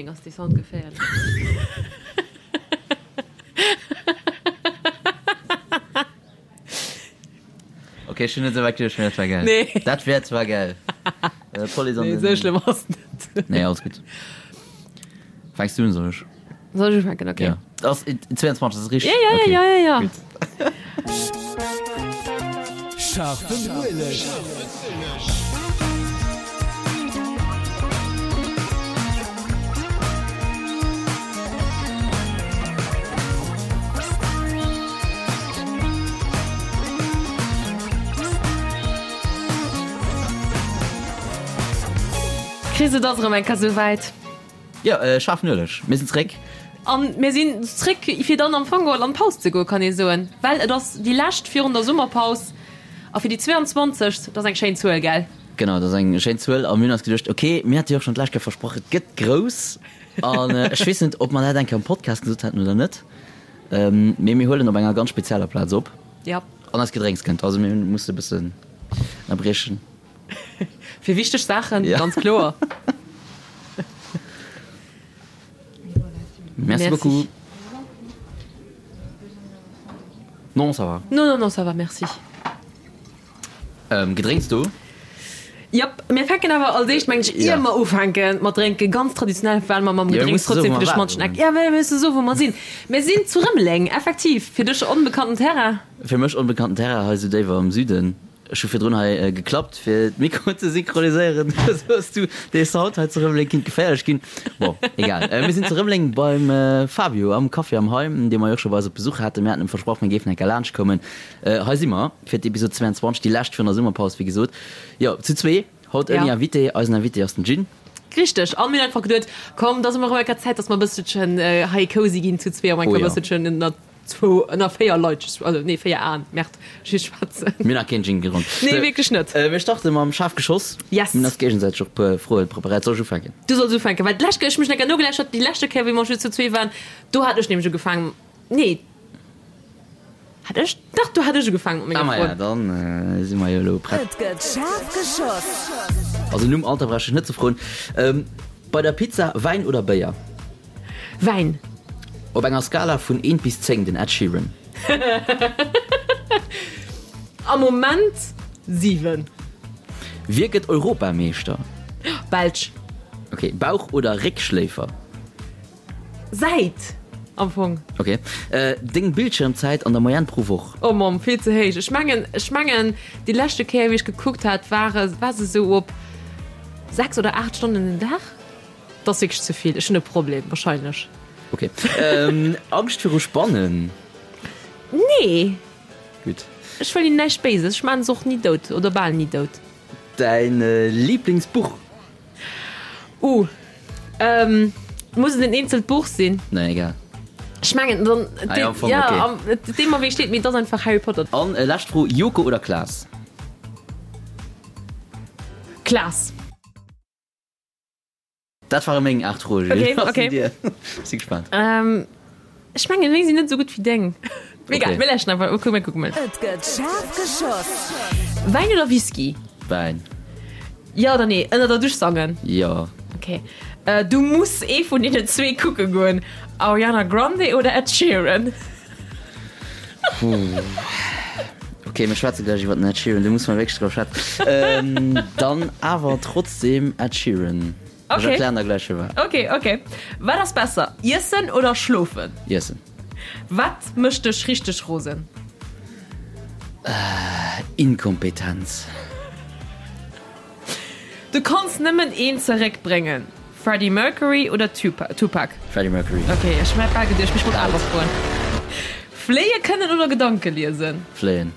Rëmeleng ass dee Sound geféierlech. Ok, ech hunn net esou wäit geduecht, mee dat war gäil. Nee. Dat wär zwar gäil. D'Police an Nee, den. esou schlëmm ass et net. Nee, alles gutt. Fänks du un, soll ech? Soll ech ufänken? Ok. Ja. Ass 22, dat ass richteg? Ja, ja, Okay. ja, ja, ja. Gutt. Scharfen Ueleg. Chris, et ass erëm eng Kéier souwäit. Jo, scharfen Ueleg. Mir sinn zréck. An mir sinn zréck, fir dann am Fong geholl an d'Paus ze goen, kann ee soen. Well et ass déi lescht virun der Summerpaus a fir déi 22. Dat ass eng schéin Zuel, gell? Genau, dat ass eng schéin Zuel. A mir hunn eis geduecht, ok, mir hate jo och schonn d'lescht Kéier versprach, et gëtt grouss. An ech weess net, ob mer dat eng Kéier am Podcast gesot haten oder net, mee mir huelen op enger ganz spezieller Plaz op. Ja. An eist Gedrénks kënnt. Also mir musse e bëssen ënnerbriechen. Fir wichteg Saachen, Ja. ganz kloer. Merci beaucoup. Non, ça va. Non, non, non, ça va, merci. Ähm, Gedrénks do? Jap, mir fänken awer als éischt, mengen ech, ier Ja. mer ufänke mat drénken, ganz traditionell, well mer mam Ja, mir Gedrénks musse soen, trotzdem wou fir de mer schmantschen waren. Eck. Ja, mir musse soen, wou mer sinn. Mir sinn zu Rëmeleng, effektiv, fir dech onbekannten Terrain. Fir mech onbekannten Terrain hei sou déiwer am Süden. Ech hu virdrun hei geklappt fir d'Mikroen ze synchroniséieren. Esou hues du dee Sound hei zu Rëmeleng kinnt geféierlech ginn. Bon, egal. Mir sinn zu Rëmeleng beim Fabio am Café am Heim, dee mer jo och scho bei eis op Besuch haten. Mir haten em versprach, mir géifen eng Kéier laanscht kommen. Hei si mer fir d'Episod 22, déi lescht virun der Summerpaus, wéi gesot. Jo, zu zwee, haut ouni Invité. Eisen Invité ass den Gin. Richteg. An mir hunn einfach geduet, komm, da si mer erëm eng Kéier Zäit, dass mer e bësselchen hei cozy ginn zu zwee, am eng Kéier e bësselchen ënnert Zwou ënner 4 Leit, also nee 4 Aen, Merde, ech schwätzen. Mir hunn nach keen Gin gedronk. Nee, wierklech net. Mir starte mam schaarf Geschoss. Yes. Mir hunn eis géigesäiteg och e puer Froe preparéiert. Soll ech ufänken? Du solls ufänken, well d'lescht Kéier, ech hu mech nach nogelauschtert, déi leschte Kéier wéi mer just zu zwee waren, do hat ech nämlech ugefaangen, nee, hat ech, dach, do hat ech ugefaangen mat Ah menger maja, Fro. dann si mer jo elo prett. Et gëtt schaarf geschoss. Also nom Alter brauch ech net ze froen. Bei der Pizza, Wäin oder Béier? Wäin. Op enger Skala vun 1 bis 10, den Ed Sheeran? Am Moment 7. Wie gëtt Europameeschter? Belsch. Ok, Bauch oder Réckschléifer? Säit am Fong. Ok, deng Bildschirmzäit an der Moyenne pro Woch? Oh Mamm, vill ze héich. Ech mengen, ech mengen déi leschte Kéier wéi ech gekuckt hat, war war se esou op 6 oder 8 Stonnen den Dag. Dat ass wierklech ze vill. Ech hunn e Problem wahrscheinlech. Ok. Angscht viru Spannen? Nee. Gutt. Ech wëll hinnen näischt Béises. Ech maachen se och ni dout oder bal ni dout. Däin Liblingsbuch? Uh. Muss et en eenzelt Buch sinn? Nee, egal. Ech mengen dann. Ah, ja, am Fong, ja, okay. am, deem mer wéi steet, mee et ass einfach Harry Potter. An lescht Fro, Joko oder Klaas? Klaas. Dat ware meng 8 Froen, Julie. Okay, Was okay. sinn dir? Ech si gespaant. Ähm, ech mengen, meng sinn net esou gutt wéi deng. Mee egal, Okay. mir läschen einfach. Okay, mir kucken mol. Et gëtt schaarf geschoss. Wäin oder Whisky? Wäin. Jo oder nee? Ënner der Dusch sangen? Jo. Okay. Äh, du muss ee vun deenen zwee kucke goen. Ariana Grande oder Ed Sheeran? Puh. Okay, mir schwätze gläich iwwer den Ed Sheeran, do muss mer wierklech drop schwätzen. Ähm, dann awer trotzdem Ed Sheeran. Ech Okay. erklären der gläich firwat. Okay, okay. Wat ass besser, iessen oder schlofen? Iessen. Wat mécht dech richteg rosen? Inkompetenz. Du kanns nëmmen een zeréck bréngen, Freddie Mercury oder Tupac? Freddie Mercury. Ok, ech hat bal geduecht, mee ech wollt awer froen. Fléie kënnen oder Gedanke liesen? Fléien.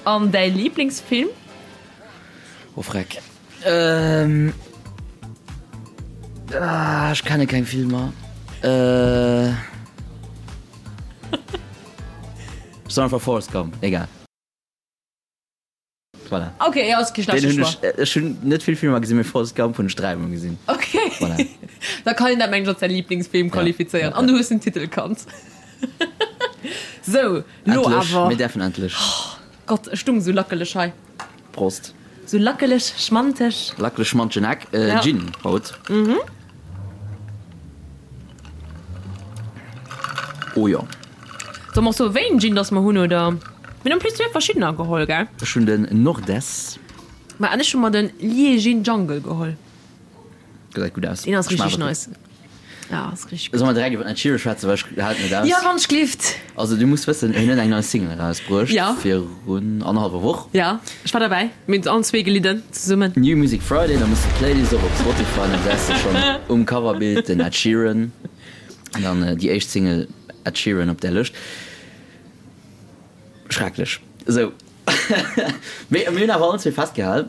An däi Liiblingsfilm? Oh freck. Ähm. Ah, ech kenne keng Filmer. Äh. Ech soen einfach Forrest Gump, egal. Voilà. Ok, jo, ass kee schlechte Den hunn Choix. ech, ech hunn net vill Filmer gesinn, mee Forrest Gump hunn ech dräimol gesinn. Ok. Voilà. Da kann een dat mengen ech als säi Liiblingsfilm Ja, qualifizéieren. ja, An ja. du hues den Titel kannt. Sou, lo Endlech, awer. mir däerfen endlech. Gott, ech stung sou lackeleg hei. Prost. Sou lackeleg, schmanteg. Lackeleg, schmantegen Eck. Ja. Gin haut. Oh jo. Solle mer och soen, wéi een Gin dass mer hunn, oder? Mir hunn en plus zwee verschiddener geholl, gell? Ech hunn den Nordes. Ma an ech hu mer den Liegin Jungle geholl. Gesäit gutt aus. Deen ass richteg nice. Ja, ass richteg gutt. Solle mer direkt iwwer den Ed Sheeran schwätzen, well ech halen et net aus. Ja, wann ech glift. Also du muss wëssen, hien huet eng nei Single erausbruecht. Ja. Virun annerhallwer Woch. Ja, ech war derbäi. Mir hunn allen zwee gelidden zesummen. New Music Friday, da muss de d'Playlist och op Spotify, dann gesäis de schonn um Coverbild den Ed Sheeran. An dann déi éischt Single Ed Sheeran op där Lëscht. Schrecklech. Esou. Mee mir hunn awer allen zwee festgehal,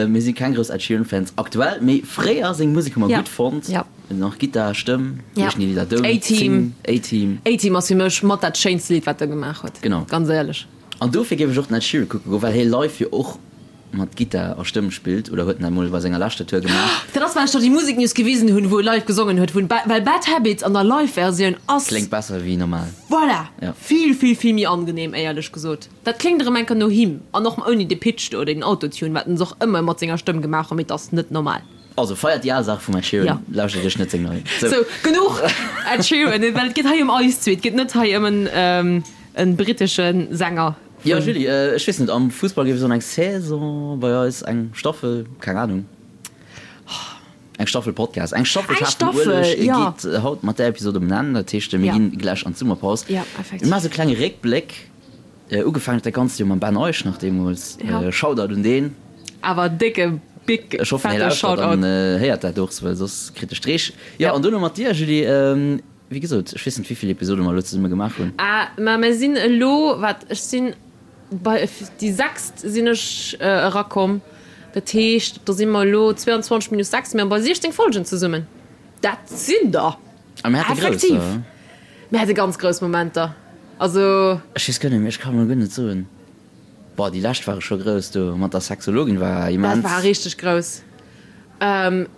mir si keng grouss Ed Sheeran Fans aktuell, mee fréier seng Musek hu mer gutt fonnt. Ja. Nach Gittar, Stëmm, Ja. wéi heeschen déi Lidder? Don't A-Team. Sing, A-Team. A-Team ass fir mech mat dat schéinste Lidd wat e gemaach huet. Genau. Ganz éierlech. An dofir géif ech och den Ed Sheeran kucke goen, well hie live jo och mat Gittar a Stëmm spillt, oder huet en dat mol bei senger leschter Tour gemaach. Dat ass well ech der déi Musiknews gewisen hunn, wou e live gesongen huet, wou en, well Bad Habits an der Live-Versioun ass. Kléngt besser wéi normal. Voilà! Ja. Vill, vill, vill méi angenehm, éierlech gesot. Dat kléngt erëm enker no him, an och ouni de Pitch do, oder den Autotune, wat en och ëmmer mat senger Stëmm gemaach huet, mee et ass net normal. Also feiert déi al Saach vum Ed Sheeran, Ja. lauschtert iech net seng nei. Sou, genuch Ed Sheeran, well et geet hei ëm eis zwee, et geet net hei ëm en, en brittesche Sänger. Jo Julie, ech weess net, am Fussball géif ee soen eng Saison, bei eis eng Staffel, keng Anung. Eng Staffel Podcast, eng Staffel Eng Schaarfen Staffel, Ueleg ja. geet haut mat där Episod um Enn. Dat heescht, mir Ja. ginn gläich an d'Summerpaus. Ja, Mir effektiv. maache sou e klenge Réckbléck. Ugefaangen huet dat Ganzt jo mam Ben Eusch nach deemools. Ja. Shoutout un deen. Awer décke, big, Ech hoffen, hie fette lauschtert Shoutout. an héiert dat och, well soss kritt e Streech. Jo, Ja. an dono mat dir, Julie. Wéi gesot, ech weess net, wéi vill Episode mer elo zesumme gemaach hunn. Ah, ma mir sinn elo, wat, ech sinn bei déi sechst sinn ech erakomm. Dat heescht, do si mer elo 22 minus 6, mir bei 16 Folgen zesummen. Dat sinn der! A mir hate grouss, Effektiv! oder? Mir hate ganz grouss Momenter. Also. Ech weess guer net méi, ech kann elo guer net soen. Boah, déi lescht ware scho grouss do mat der Sexologin war immens. Dat war richteg grouss.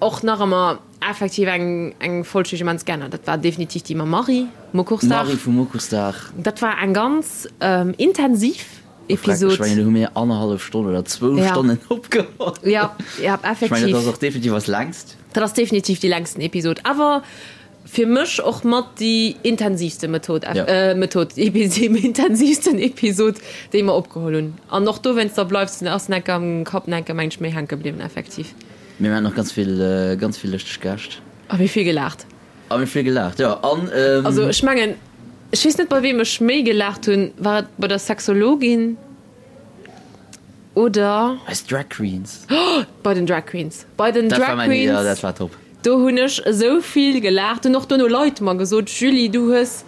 Och nach ëmmer effektiv eng eng Folg déi ech immens gär hat. Dat war definitiv déi mam Marie, Mokuchsdag. Marie vum Mokuchsdag. Dat war eng ganz intensiv Episod. Ech mengen do hu mir annerhallef Stonn oder zwou Stonnen opgeholl. Ja, ja effektiv. Ech mengen dat ass och definitiv eis längst. Dat ass definitiv déi längsten Episod. Awer Fir mech och mat déi intensivste Method, Method, déi intensivsten Episod, déi mer opgeholl hunn. An och dowéinster bleift se, ass enker am Kapp enker meng ech méi hänke bliwwen, effektiv. Mir haten och ganz vill, ganz vill lëschteg Gäscht. A mir vill gelaacht. A mir vill gelaacht, jo. An. Also ech mengen, ech weess net bei weem ech méi gelaacht hunn, war et bei der Sexologin oder. Eis Drag Queens. Bei den Drag Queens. Bei den Dat war Drag mäin, jo, Queens. dat war top. Do hunn ech esou vill gelaacht. Hunn och dono Leit mer gesot, Julie, du hues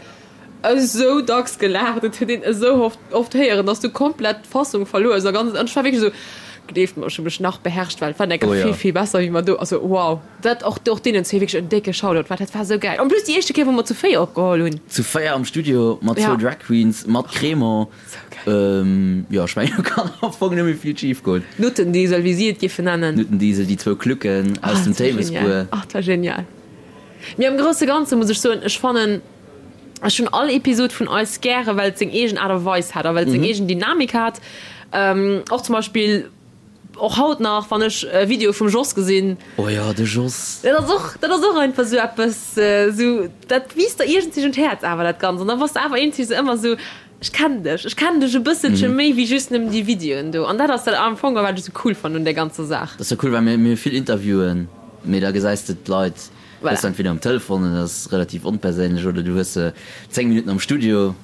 esou dacks gelaacht, et huet een esou oft, oft héieren, dass du komplett d'Fassung verluer hues a ganz, an ech war wierklech esou, gleeft mer, ech hu mech nach beherrscht, well et war enker Oh jo. vill, vill besser wéi mer do, also wow. Dat och, och deenen zwee wierklech en décke Shoutout, well dat war esou gäil. En plus déi éischte Kéier, wou mer zu 4 opgeholl hunn. Zu 4 am Studio mat zwou Ja. Drag Queens, mat Crémant. Jo, ech mengen, do kann am Fong net méi vill schif goen. Nuttendiesel, wéi si et géifen nennen. Nuttendiesel, déi zwou Klucken aus dem Théiwesbuer. Ach, dat war genial. Mee am grousse Ganze muss ech soen, ech fannen, ech hunn all Episod vun eis gäre, well et seng eegen Aart a Weis hat a well et seng eegen Dynamik hat. Och zum Beispill, och haut nach, wann ech e Video vum Jos gesinn. Oh jo, de Jos. Dat ass och, dat ass och einfach esou eppes, esou, dat wiisst der iergendwéi un d'Häerz awer, dat Ganzt. An da bass de awer iergendwéi esou ëmmer esou, Ech kennen dech, ech kennen dech e bësselche méi wéi just nëmmen déi Videoen do. An dat ass dat am Fong, wat ech esou cool fannen un där ganzer Saach. Dat ass jo cool, well mir mir hu vill Interviewen, mee da gesäis de d'Leit, Voilà. hues se entweder um Telefon, an dat ass relativ onperséinlech, oder du hues se 10 Minutten am Studio.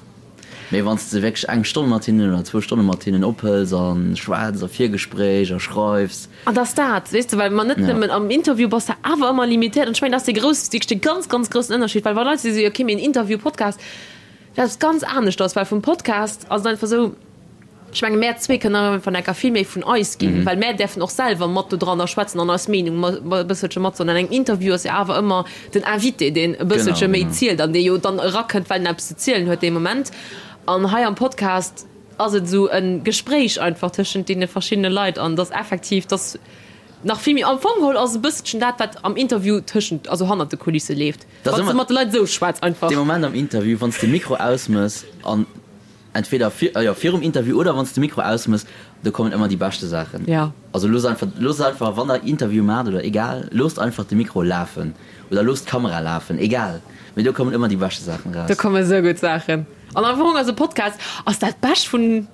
Mee wann s de wierklech eng Stonn mat hinnen oder zwou Stonne mat hinnen ophëls a schwätz a Virgespréich a schreifs. An dass dat, weess de, well mer net Ja. nëmmen am Interview bass de awer ëmmer limitéiert. An ech mengen, dat ass dee grouss, wierklech dee ganz, ganz groussen Ënnerscheed, well wa Leit si sou, okay, mee en Interview, Podcast, Dat ass ganz aneschters, well vum Podcast ass et einfach esou, ech menge mär zwee kënnen einfach enker vill méi vun eis ginn, well mär däerfen och selwer mat do dranner schwätzen an eis Meenung e bësselche matsoen. An engem Interview ass jo awer ëmmer den Invité, deen e bësselche méi zielt an dee jo dann erakënnt, well en eppes ze zielen huet dee Moment. An hei am Podcast ass et esou e Gespréich einfach tëschent deene verschiddene Leit an dass effektiv, dass nach vill méi, am Fong geholl ass e bësselchen dat, wat am Interview tëschent, also hannert de Kulisse leeft. Dat ass Wann s de ëmmer mat de Leit esou schwätz einfach. dee Moment am Interview, wann s de Mikro ausmëss an Entweder vir, jo, virum Interview oder wann s de Mikro ausmëss, do kommen ëmmer déi beschte Saachen. Ja. Also loosst einfach, loosst einfach, wann der Interview maacht oder egal, loosst einfach de Mikro lafen oder loosst d'Kamera lafen, egal, mee do kommen ëmmer déi beschte Saachen Do eraus. komme sou gutt Saachen. An am Fong ass e Podcast ass dat Bescht vun,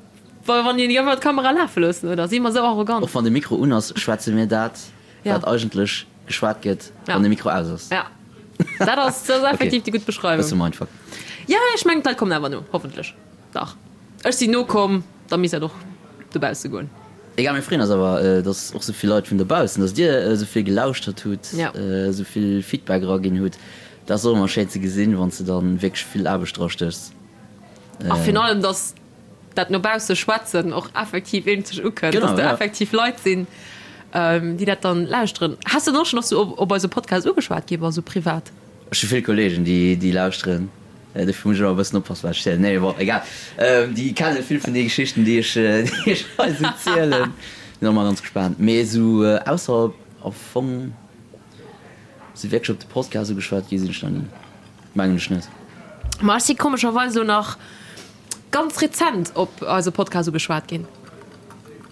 wa wann een einfach d'Kamera lafe loossen, oder? Si mer sou arrogant? Och wann de Mikro un ass, schwätze mir dat, Ja. wat eigentlech geschwat gëtt, Ja. wann de Mikro aus ass. Ja. Dat ass, dat ass effektiv déi gutt Beschreiwung. Bësse Mindfuck. Ja, ech mengen d'Leit kommen awer no, hoffentlech. Dach, ech sinn nokomm, da misst dat och dobausse goen. Egal, mir freeën eis awer, dass och souvill Leit vun dobaussen, dass dir esouvill gelauschtert hutt, esouvill Feedback eraginn hutt. Dat ass och ëmmer schéin ze gesinn, wann s de dann wierklech vill Aarbecht drastéchs. A virun allem, dass dat no bausse schwätzen och effektiv eenzeg ukënnt, dass do effektiv Leit sinn, déi dat dann lauschteren. Has de dann och schonn och sou op eise Podcast ugeschwat gi, wa sou privat? Ech hu vill Kollegen, déi lauschteren. Dofir muss ech ëmmer e bëssen oppassen, wat ech zielen. Nee, bon, egal. Déi kenne vill vun de Geschichten, déi ech, déi ech hei esou zielen. Sinn och ëmmer ganz gespaant. Mee esou ausserhalb am Fong esou wierklech op de Podcast ugeschwat gi sinn ech nach ni. Mengen ech net. Ma ech si komescherweis elo nach ganz rezent op eise Podcast ugeschwat ginn.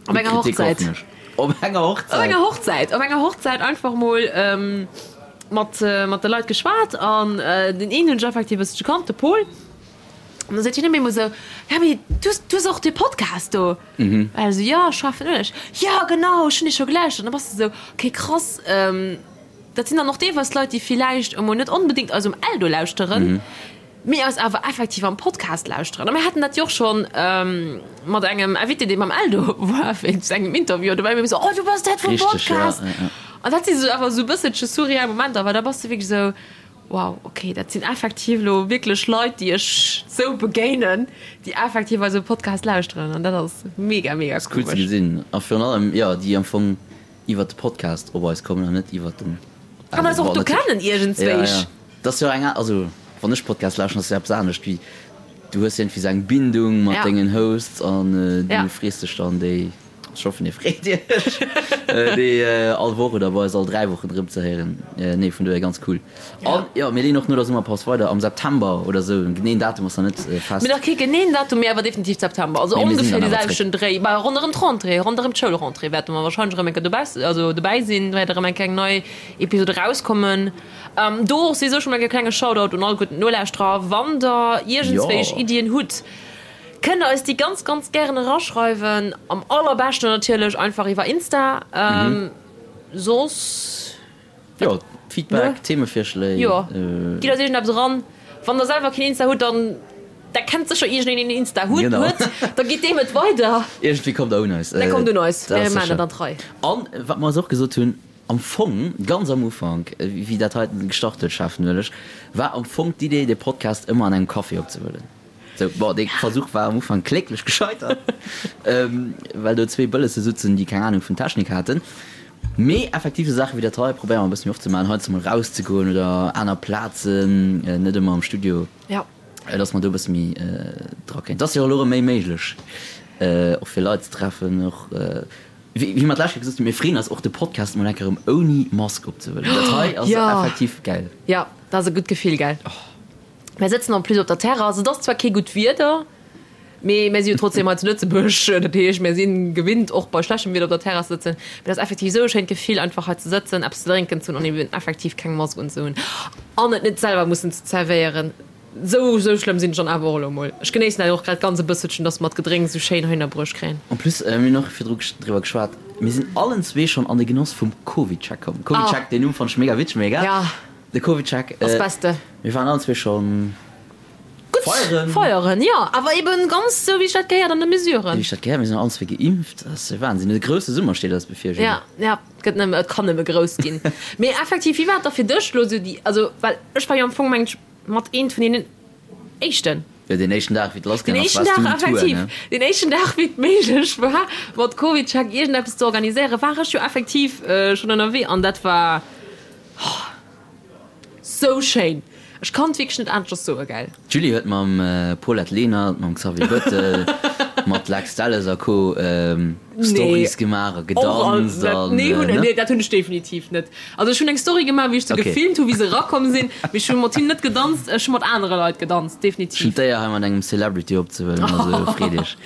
Op enger Hochzäit. Op enger Hochzäit? Op enger Hochzäit. Op enger Hochzäit einfach mol mat, mat de Leit geschwat an den een hunn ech effektiv e bëssche gekannt, de Paul. An da seet hien op eemol esou, Ja, mee du, du hues och dee Podcast do? Mhm. An ech esou, Jo, Scharfen Ueleg. Jo, genau, ech hunn dee scho gelauschtert. An da bass de esou, Okay, krass, dat sinn dann och deelweis Leit, déi villäicht emol net onbedéngt eis um Eldo lauschteren. Mee eis awer effektiv am Podcast lauschteren. A mir haten dat jo och schonn mat engem Invité, dee beim Eldo war wéinst engem Interview. An do war mir esou, Oh, du bass dat vum Podcast! An dat si sou awer esou e bësselche surreal Momenter, well da bass de wierklech esou, Wow, okay, dat sinn effektiv elo wierklech Leit, déi ech sou begéinen, déi effektiv eise Podcast lauschteren. An dat ass mega, mega komesch. Ass cool ze gesinn. A virun allem, jo, déi am Fong iwwert de Podcast op eis kommen an net iwwert den Eldo. An eis och do kennen iergendzwéich. Dat ass jo eng, also wann ech Podcast lauschteren, ass jo eppes anescht wéi, du hues iergendwéi sou eng Bindung mat dengen Hosts an du frees dech dann déi, ech hoffen dir freet iech, déi all Woch oder bei eis all 3 Wochen erëm ze héieren. Nee, vun dohier ganz cool. An jo, mir leeën och no der Summerpaus weider am September oder sou, en geneeën Datum ass nach net fest. Mir nach kee geneeën Datum, mee awer definitiv September, also ongeféier dee selwechten Dréi, bah ronderëm d'Rentrée, ronderëm d'Schoulrentrée wäerte mer wahrscheinlech erëm eng Kéier dobaussen, also dobäi sinn, wäert erëm eng kleng nei Episode erauskommen. Do och souwisou schon mol e klenge Shoutout un all gutt Nolauschterer, Wann der iergendswéich Iddien hutt, kënnt der eis déi ganz, ganz gären eraschreiwen. Am allerbeschten natierlech einfach iwwer Insta. Soss. Jo, Feedback, Themevirschléi. Jo, gitt eis iergendeppes eran. Wann der selwer keen Insta hutt, dann der kennt sécher iergendeen, deen Insta huet, da gitt deem et weider. Iergendwéi kommt der un eis. Da kommt un eis, mir maachen dat an d'Rei. An wat mer eis och gesot hunn, Am Fong, ganz am Ufank, wéi dat heiten gestart huet, Schaarfen Ueleg, war am Fong d'Idee, de Podcast ëmmer an engem Café opzehuelen. Sou, bon, dee Versuch war am Ufank kläglech gescheitert, well do zwee Bëllesse sutzen, déi keng Anung vun Technik haten. Mee effektiv, esou Saache wéi dat hei probéiere mer e bësse méi oft ze maachen, heiansdo mol erauszegoen oder aner Plazen, net ëmmer am Studio, dass mer do e bësse méi dra kéint. Et ass jo elo erëm méi méiglech, och fir Leit ze treffen, och. Wéi mer d'lescht Kéier gesot hunn, mir freeën eis och de Podcast mol eng Kéier erëm ouni Mask opzehuelen. Dat hei ass effektiv gäil. Jo, dat ass e gutt Gefill, gell? Mir sëtzen en plus op der Terrass. Et ass zwar kee gutt Wieder, mee mir si jo trotzdem hei zu Lëtzebuerg. Dat heescht, mir si gewinnt och bei schlechtem Wieder op der Terrass ze sëtzen. Mee et ass effektiv esou e schéint Gefill, einfach hei ze sëtzen, eppes ze drénken ze hunn an eben effektiv keng Mask unzehunn an et net selwer mussen ze zerwéieren. Sou sou schlëmm sinn ech dann awer och elo mol. Ech genéissen dat och grad ganz e bësselchen, dass mer d'Gedrénks sou schéin heihinner bruecht kréien. En plus, mir hunn och virdru driwwer geschwat, mir sinn allen zwee schonn an de Genoss vum CovidCheck komm. CovidCheck, deen Numm fannt ech mega witzeg, mee egal. Ja. De CovidCheck. Ass beste. Mir waren allen zwee schonn Gutt feieren. Feieren, jo. Awer eben ganz sou wéi sech dat gehéiert an de Mesuren. Wéi sech dat gehéiert. Mir sinn allen zwee geimpft. Dat ass Wahnsinn. E grousse Summer steet eis bevir, Julie. Ja, ja. Et gëtt nëmme, et kann nëmme grouss ginn. Mee effektiv, wéi war et da fir dech elo sou déi, also well ech war jo am Fong, mengen ech, mat eent vun deenen éischten. Jo, deen éischten Dag, wéi et lassgaang ass, Den éischten waars du Dag, um Tour, effektiv. ne? Den éischten Dag, wéi et méiglech war, mat CovidCheck iergendeppes ze organiséieren, war ech jo effektiv schonn ënnerwee an dat war sou schéin. Ech kann et wierklech net aneschters soen, gell. D'Julie huet mam Paulette Lenert, mam Xavier Bettel. Mat Lex Delles a Co. Stories gemaach a gedanzt an. Nee, nee, dat hunn ech definitiv net. Also ech hunn eng Story gemaach, wéi ech se gefilmt hunn, wéi se erakomm sinn, mee ech hu mat hinnen net gedanzt. Ech hu mat anere Leit gedanzt, definitiv. Ech hunn d'Éier hei mat engem Celebrity opzehuelen, also freet iech.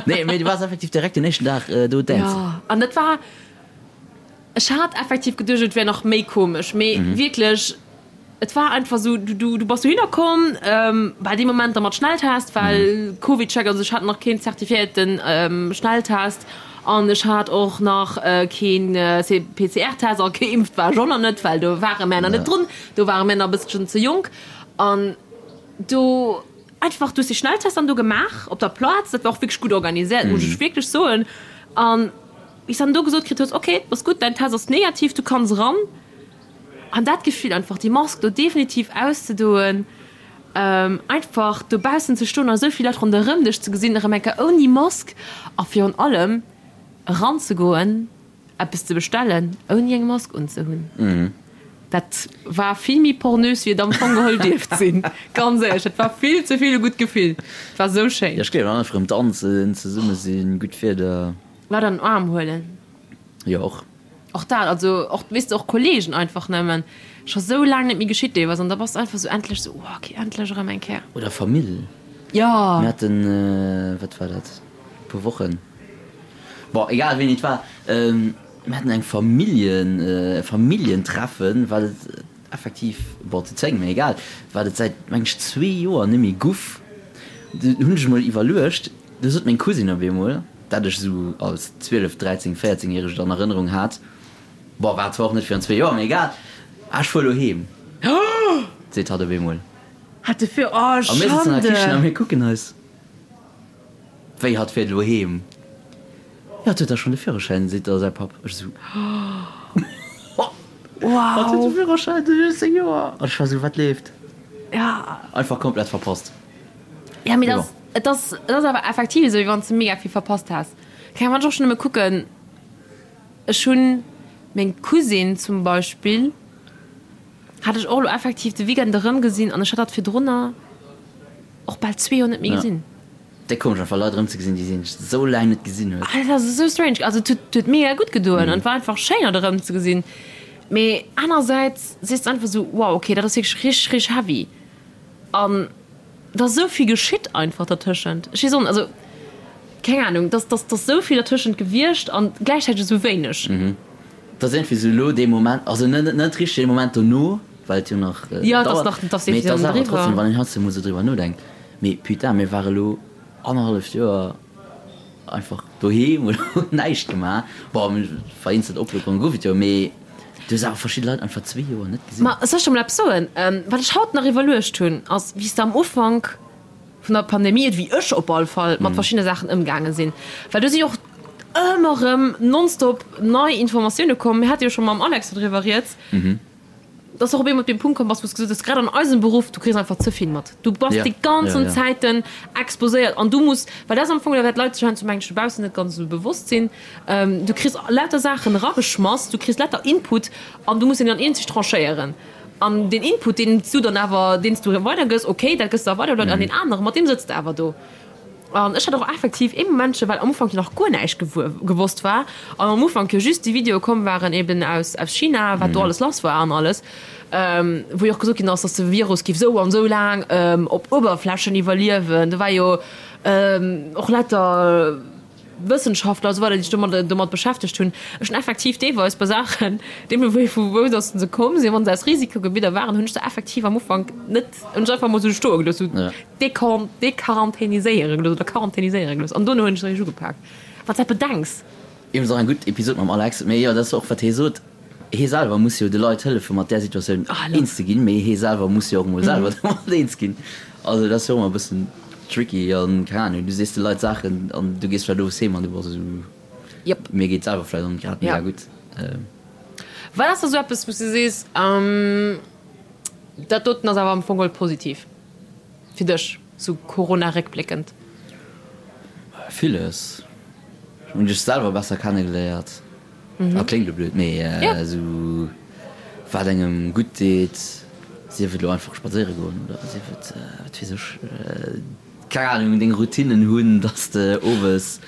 Nee, mee du waars effektiv direkt den éischten Dag do dancen. Jo, an dat war, ech hat effektiv geduecht, et wär nach méi komesch, mee wierklech, Et war einfach sou, du, du, du bass dohinner komm, ähm, bei deem Moment da mat Schnelltest, well Covid-Check, also ech hat nach keen zertifiéierten ähm, Schnelltest an ech hat och nach äh, keen äh, PCR-Test a geimpft war ech och nach net, well do ware mär nach net drun, do ware mär nach e bësselchen ze jonk an do einfach, du hues dee Schnelltest dann do gemaach op der Plaz, dat war och wierklech gutt organiséiert, muss ech wierklech soen an wéi s dann do gesot kritt hues, okay, ass gutt, däin Test ass negativ, du kanns eran. An dat Gefill einfach déi Mask do definitiv auszedoen, einfach dobaussen ze stoen a sou vill Leit ronderëm dech ze gesinn, erëm eng Kéier ouni Mask a virun allem eranzegoen, eppes ze bestellen ouni eng Mask unzehunn, dat war vill méi pornös wéi et am Fong geholl dierft sinn. Ganz éierlech, dat war vill ze vill e gutt Gefill. Et war sou schéin. Jo, ech gleewen einfach erëm danzen, zesumme sinn, gutt Wieder. Leit an den Aarm huelen. Jo, och. Och dat, also och, weess de, och Kollegen einfach nëmmen, scho sou laang net méi geschitt deelweis an da bass de einfach sou endlech sou, oh okay, endlech erëm eng Kéier. Oder Famill. Jo. Mir haten, wat war dat, e puer Wochen, bon, egal wéini et war, mir haten eng Familljen, e Familljentreffen, wat et effektiv, bon, zu 10, mee egal, wat et säit, meng ech, zwee Joer net méi guff. Du hunn ech emol iwwerluecht, du sot meng Cousine op eemol, dat ech esou als 12, 13, 14 järegt an Erënnerung hat, bon, war zwar och net virun zwee Joer, mee egal, ah, ech fuer elo heem, seet hatt op eemol. Hat de fir, oh A mir sëtzen an der Kichen a Schande! mir kucken eis, wéi hatt fiert elo heem? Jo, hatt huet da schonn de Führerschäin, seet da säi Papp. Ech esou, Hatt huet de Wow! Führerschäin, de 16 Joer! An ech war esou, wat leeft? Ja. Einfach komplett verpasst. Ja, mee dat ass, et ass, et ass awer effektiv esou, wéi wann s de mega vill verpasst häss. Keng Ahnung, wann ech och schonn nëmme kucken, ech hunn meng Cousine zum Beispill, hat ech och elo effektiv de Weekend erëmgesinn an ech hat hatt virdrunner och bal zwee Joer net méi gesinn. Déck komesch einfach Leit erëmzegesinn, déi een esou laang net gesinn huet. Ah, dat ass esou strange. Also et huet, huet mega gutt gedoen an et war einfach schéin hatt erëmzegesinn. Mee anersäits sees de einfach esou, wow, okay, dat ass wierklech richteg, richteg heavy. An et ass esou vill geschitt einfach dertëschent. Ech weess och net, also keng Ahnung, et ass, et ass, et ass esou vill dertëschent gewiescht an gläichzäiteg esou wéineg. Et ass iergendwéi esou elo dee Moment, also net, net richteg dee Moment dono, well et jo nach Jo, et ass dauert, nach, et ass mee et definitiv ass nach awer net trotzdem, eriwwer. wann een heiansdo emol esou driwwer nodenkt, mee putain, mir ware elo annerhalleft Joer einfach doheem oder hunn näischt gemaach. Bon, vereenzelt Oplockerunge gouf et jo, mee du hues awer verschidde Leit einfach zwee Joer net gesinn. Ma soll ech der mol eppes soen? Wat ech haut nach iwwerluecht hunn, ass, wéi s de am Ufank vun der Pandemie, wéi ech op all Fall mat verschiddene Saachen ëmgaange sinn, well do si jo och ëmmer erëm nonstop nei Informatioune komm. Mir hate jo scho mam Alex do driwwer rieds. Dass och op eemol op dee Punkt komm bass, wou s de gesot hues, grad an eisem Beruff, du kriss einfach ze vill mat. Du bass déi ganzen Zäiten exposéiert an du muss, well dat ass am Fong dat, wat d'Leit sech heiansdo, mengen ech, dobaussen net ganz esou bewosst sinn, du kriss lauter Saachen erageschmass, du kriss lauter Input an du muss deen dann eenzeg tranchéieren. An deen Input, deen s du dann awer, deen s du weidergëss, okay, dat gëss de da weider un deen aneren, mat deem sëtz de awer do. An ech hat och effektiv ee Momentche, well am Ufank jo nach guer näischt gewosst war an am Ufank jo just déi Videoe komm waren eben aus aus China, wat do alles lass war an alles, wou jo och gesot ginn ass, datt de Virus géif esou an esou laang op Uewerflächen iwwerliewen. Do war jo och lauter Wëssenschaftler a sou weider, déi sech domat domat beschäftegt hunn. Ech hunn effektiv deelweis bei Saachen, deemno wéi vu wou datt se komm sinn, wa se aus Risikogebidder waren, hunn ech se effektiv am Ufank net, hunn ech einfach emol esou stoe gelooss, esou dequarantäniséiere gelooss oder quarantäniséiere gelooss an dono hunn ech se eréischt ugepak. Wann s dat bedenks. Iwwregens och eng gutt Episod mam Alex, mee jo, dat ass och wat hie sot, hie selwer muss jo de Leit hëllefe mat där Situatioun eens ze ginn, mee hie selwer muss jo och emol selwer domat eens ginn. Also dat ass jo och ëmmer e bëssen tricky an keng Ahnung, du sees de Leit Saachen an du gees vläicht owes heem an du bass esou, mir geet selwer vläicht och net grad mega gutt. Wat ass da sou eppes wou s du sees, dat doten ass awer am Fong geholl positiv fir dech, sou Corona-réckbléckend? Villes. Ech hunn dech selwer besser kennegeléiert. Ah, kléngt elo blöd, mee esou wat engem gutt deet, sief et elo einfach spadséiere goen oder sief et, wat weess ech, Keng Ahnung, deng Routinnen hunn, dass de owes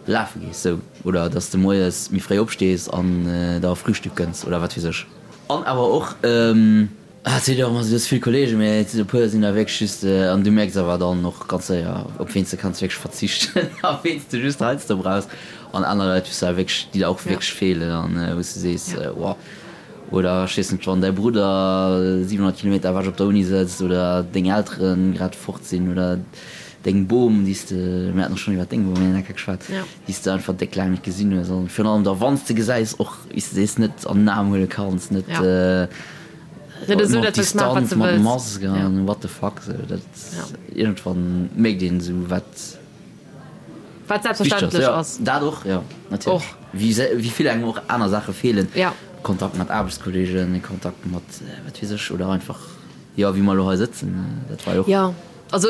lafe gees, sou, oder dass de moies méi fréi opstees an der Frühstück gënns oder wat weess ech. An awer och, et seet jo och ëmmer sou, du hues vill Kollegen, mee et sinn e puer sinn da wierklech just, an du mierks awer dann och ganz séier, op ween s de kanns wierklech verzichten a ween s de just heiansdo brauchs an aner Leit, wou s de awer wierklech, déi der och wierklech feelen an wou s de sees, wow. Oder ech weess net, wann däi Brudder 700 Kilometer ewech op der Uni sëtzt oder deng Eltere grad fort sinn oder deng Bom, déi s de, mir haten och schonn iwwer deng Bom eng Kéier geschwat, déi s de einfach déck laang net gesinn hues an virun allem da wann s de gesäis och, wéi s de sees, net an den Aarm huele kanns, net op Distanz mat Mask an what the fuck, sou dat iergendwann mierkt een esou wat. Wat selbstverständlech ass. Dat och, jo, natierlech. Wéi vill engem och aner Saache feelen. Kontakt mat Aarbechtskolleegen, Kontakt mat wat weess ech, oder einfach, jo, wéi mer elo hei sëtzen, dat war jo och. Jo, also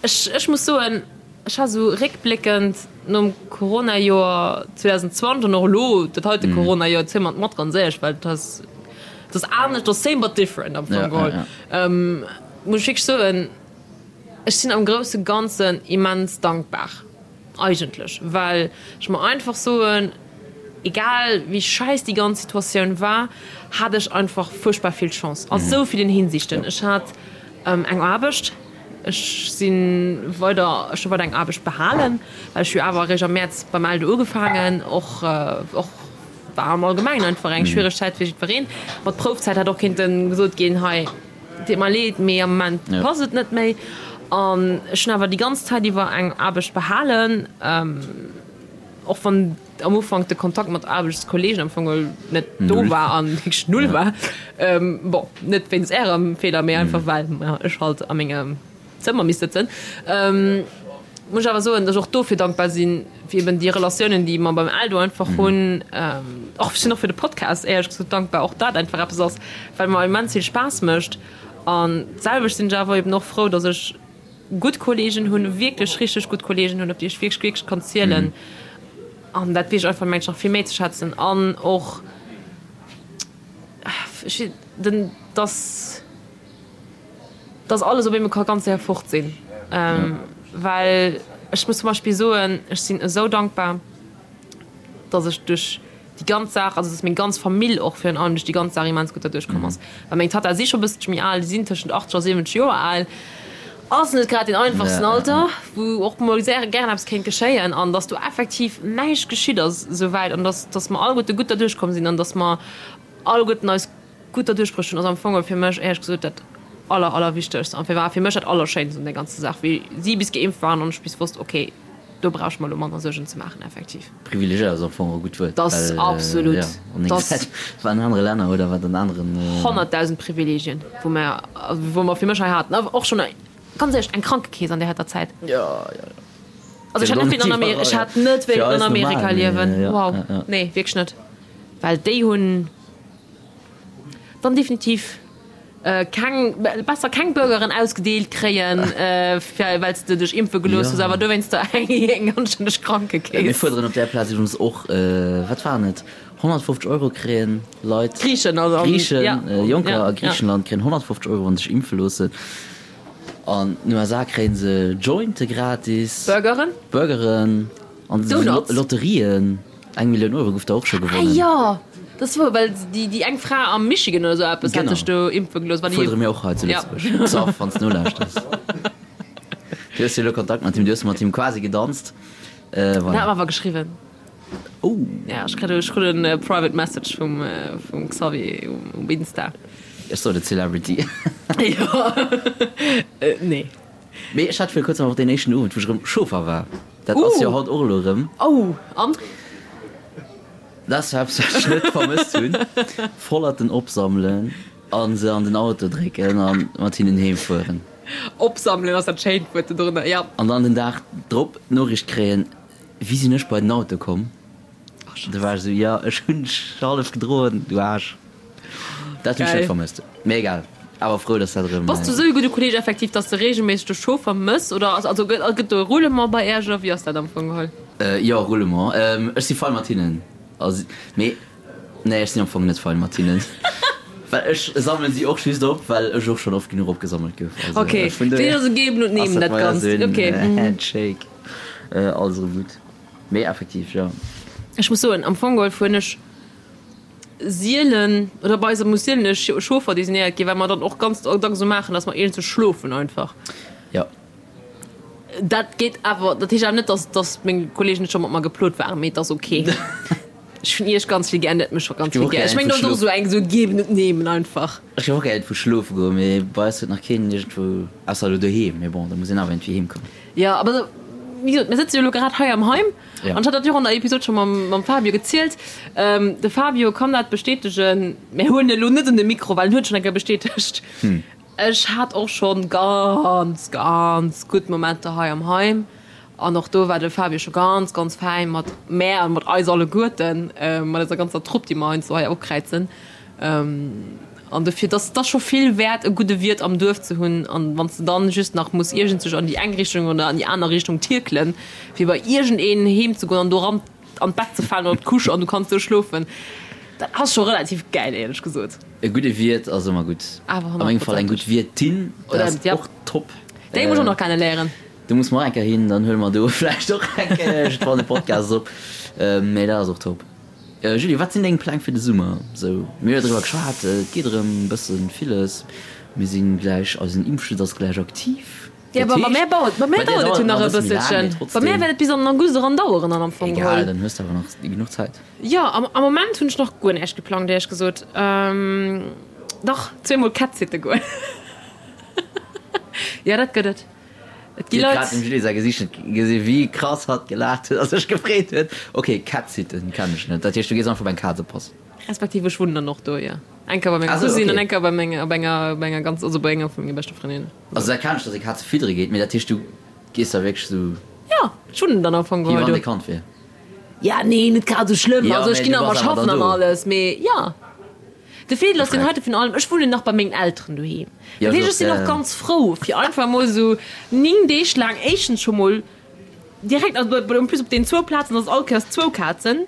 ech, ech muss soen, ech ha sou réckbléckend nom Coronajoer 2020 an och elo dat heite Coronajoer, ziele mer et mat, ganz éierlech, well et ass, et ass anescht, et ass same but different am Fong geholl, muss ech wierklech soen, Ech sinn am grousse Ganzen immens dankbar eigentlech, well ech mer einfach soen, egal wéi schäiss déi ganz Situatioun war, hat ech einfach fuerchtbar vill Chance a sou villen Hinsichten. Ech hat eng Aarbecht, ech si weider, ech hu weider eng Aarbecht behalen, well ech hu awer eréischt am Mäerz beim Eldo ugefaangen, och och war am Allgemengen einfach eng schwiereg Zäit fir jiddwereen. Mat Proufzäit hätt och kéinte gesot ginn, hei, Deet mer leed, mee am Moment passt et net méi. An ech hunn awer déi ganz Zäit iwwer eng Aarbecht behalen, och wann am Ufank de Kontakt mat Aarbechtskollegen am Fong net do war an wierklech null war. Bon, net wéinst Ärem Feeler, mee einfach well ech halt a mengem Zëmmer misst sëtzen. Muss ech awer soen, datt ech och dofir dankbar sinn, fir eben déi Relatiounen, déi mer beim Eldo einfach hunn. Och ech sinn och fir de Podcast éierlech gesot dankbar, och dat einfach eppes ass, wat mer immens vill Spaass mécht. An d'selwecht sinn ech awer eben och frou, datt ech gutt Kolleegen hunn, wierklech richteg gutt Kolleegen hunn, op déi ech wierklech, wierklech kann zielen. An dat weess ech einfach, mengen ech, nach vill méi ze schätzen. An och ech, den, datt. dass alles op eemol ka ganz séier fort sinn. Well ech muss zum Beispill soen, ech sinn esou dankbar, dass ech duerch déi ganz Saach, also dass meng ganz Famill och virun allem duerch déi ganz Saach immens gutt derduerch komm ass. Well meng Tatta si scho e bësselche méi al, déi sinn tëschent 80 a 70 Joer al, ass net grad deen einfachsten Alter, wou och mol sehr gären eppes kéint geschéien. An dass do effektiv näischt geschitt ass esouwäit an dass, dass mer alleguerte gutt derduerch komm sinn an dass mer alleguerten eis Gutt derduerch bruecht hunn, ass am Fong fir mech éierlech gesot dat aller, allerwichtegst an war fir mech dat Allerschéinst un der ganzer Saach, wéi si bis geimpft waren an ech bis wosst, okay, do brauch ech mer elo manner Suergen ze maachen, effektiv. Privilegéiert ass am Fong e gutt Wuert, Dat ass absolut, jo, an dat ass wat an anere Länner oder wat an aneren. 100.000 Privilegien, wou mer, wou mer fir mech hei haten, awer och schonn, ganz éierlech, eng Krankekeess an där heiter Zäit. Jo, jo, jo. Also ech hätt net wéilt an Amerika, ech hätt net wéilt an Amerika liewen, wow, nee, wierklech net, well déi hunn. Dann definitiv keng, besser keng Burgeren ausgedeelt kréien, well s de dech impfe gelooss hues, awer dowéinster eng anstänneg Krankekeess. Mir fuerderen op där Plaz iwwregens och, wat waren et, 150 Euro kréien Leit, Griichen, also, Griichen, Jonker a Griichenland kréien 150 Euro, wa se sech impfe loossen. An den USA kréie se Jointe gratis, Burgeren, Burgeren an Donuts, Lotterien. Eng Millioun Euro gouf der och scho gewonnen. Ah jo, dat ass wouer, well déi déi eng Fra am Michigan oder sou eppes hat sech do impfe gelooss. Genau. Fuerdere mir och hei zu Lëtzebuerg. Xaph, wann s de nolauschters. Du hues jo elo Kontakt mat him, du hues mat him quasi gedanzt. Voilà. En hat mer awer geschriwwen. Oh. Ja, ech kritt ech krut en private message vum vum Xavier um Insta. Ech sot et, Celebrity. Jo, nee. Mee ech hat viru kuerzem och deen éischten Owend, wou ech erëm Chauffer war. Dat ass jo haut och elo erëm. Oh, an? Dat ass eppes, wat ech net vermësst hunn. Vollerten opsammelen a se an den Auto drécken a mat hinnen heem fueren. Opsammelen ass dat schéint Wuert dodrënner, jo. An dann den Dag drop d'Noriicht kréien, Wéi sinn ech bei den Auto komm? Da war ech esou, Jo, ech hunn dech hallef gedroen, du Aarsch. Dat hunn ech net vermësst. Mee egal, awer frou, dass dat erëm. Bass du esou e gudde Kolleeg effektiv, dass de reegelméisseg de Chauffer mëss oder ass, also gëtt, gëtt do e Roulement bei Äerch oder wéi ass dat am Fong geholl? Jo, Roulement. Ech si fein mat hinnen. Also, mee nee, ech sinn am Fong net fein mat hinnen. Well ech sammelen si och just op, well ech och schonn oft genuch opgesammelt gouf. Also, okay. Vun dohier ass et geben und nehmen, dat Ganzt. Okay. Handshake. Alles erëm gutt. Mee effektiv, jo. Ech muss soen, am Fong geholl hunn ech sielen, oder bei eis muss sielen e Chauffer designéiert ginn, well mer dann och ganz dacks esou maachen, dass mer iergendwou schlofen einfach. Jo. Dat geet awer, dat heescht awer net, dass, dass meng Kollegen net scho mat mer geplot waren, mee et ass ok. Ech hunn iech ganz vill gär, net mech scho ganz vill gär. Ech mengen, dat ass och esou eng, esou geben und nehmen einfach. Ech géif och gär iergendwou schlofe goen, mee bei eis huet nach keen iergendwou, ausser elo doheem, mee bon, da muss een awer iergendwéi heem kommen. Jo, awer esou, wéi gesot, mir sëtze jo elo grad hei am Heim an ech hat dat jo och an der Episod scho mam, mam Fabio gezielt. De Fabio kann dat bestätegen, mir huelen e elo net un de Mikro, well en huet et schonn eng Kéier bestätegt. Ech hat och schonn ganz, ganz gutt Momenter hei am Heim an och do war de Fabio scho ganz, ganz fäin mat mär an mat eis alleguerten, mat eiser ganzer Trupp, déi mer heiansdo hei opkräizen. An dofir, dass et ass scho vill wäert, e gudde Wiert am Duerf ze hunn. An wann s de dann just nach muss iergendsech an déi eng Richtung oder an déi aner Richtung tierkelen, fir bei iergendeen heem ze goen an do eran an d'Bett ze falen oder op d'Couche an du kanns do schlofen, dat ass scho relativ gäil, éierlech gesot. E gudde Wiert ass ëmmer gutt. Awer A mengem Fall eng gutt Wiertin, dat ass och top. Déi muss ech och nach kenne léieren. Do muss mer och eng Kéier hin, dann huele mer do vläicht och eng Kéier iergendwann e Podcast op. Mee dat ass och top. Julie, wat sinn deng Pläng fir de Summer? Sou, mir hu jo driwwer geschwat, et geet erëm e bësse villes. Mir si gläich, eisen Impfschutz ass gläich aktiv. Jo, bei mär dauert, bei mär dauert et jo nach e bësselchen. Bei mär wäert et bis an den August eran daueren dann am Fong geholl. Egal, dann hues de awer nach genuch Zäit. Jo, am Moment hunn ech nach guer näischt geplangt, éierlech gesot. Dach, zweemol Cat-Sitte goen. Jo, dat gëtt et. Et gi Dir hutt grad Leit. dem Julie säi Gesiicht net gesi wéi krass hatt gelaacht huet a sech gefreet huet. Ok, Cat-Sitten kennen ech net. Dat heescht, du gees einfach op eng Kaz oppassen? Respektiv ech wunnen dann och do, jo. Eng Kéier bei menger Ah sou, Cousine an ok. eng Kéier bei menger, op enger, bei enger ganz, also bei enger vu menge beschte Frëndinnen. Also dat kennen ech, dass ee Kaze fiddere geet, mee dat heescht, du gees da wierklech sou. Jo, ech wunnen dann am Fong Wéi geholl wann do. et e Kand wier. Ja, nee, net grad esou schlëmm. Jo, Also ech mee ginn du nach bass emmer awer schaffen dann an do. alles, mee jo. De Feedel ass deen Freck. heite vun allem, ech wunnen nach bei mengen Elteren doheem. Ja, Dat heescht, so, ech sinn ja, och ja. ganz frou, fir einfach emol esou 9 Deeg laang éischtens scho mol direkt, also en plus op deenen zwou Plazen ass et all Kéiers zwou Kazen.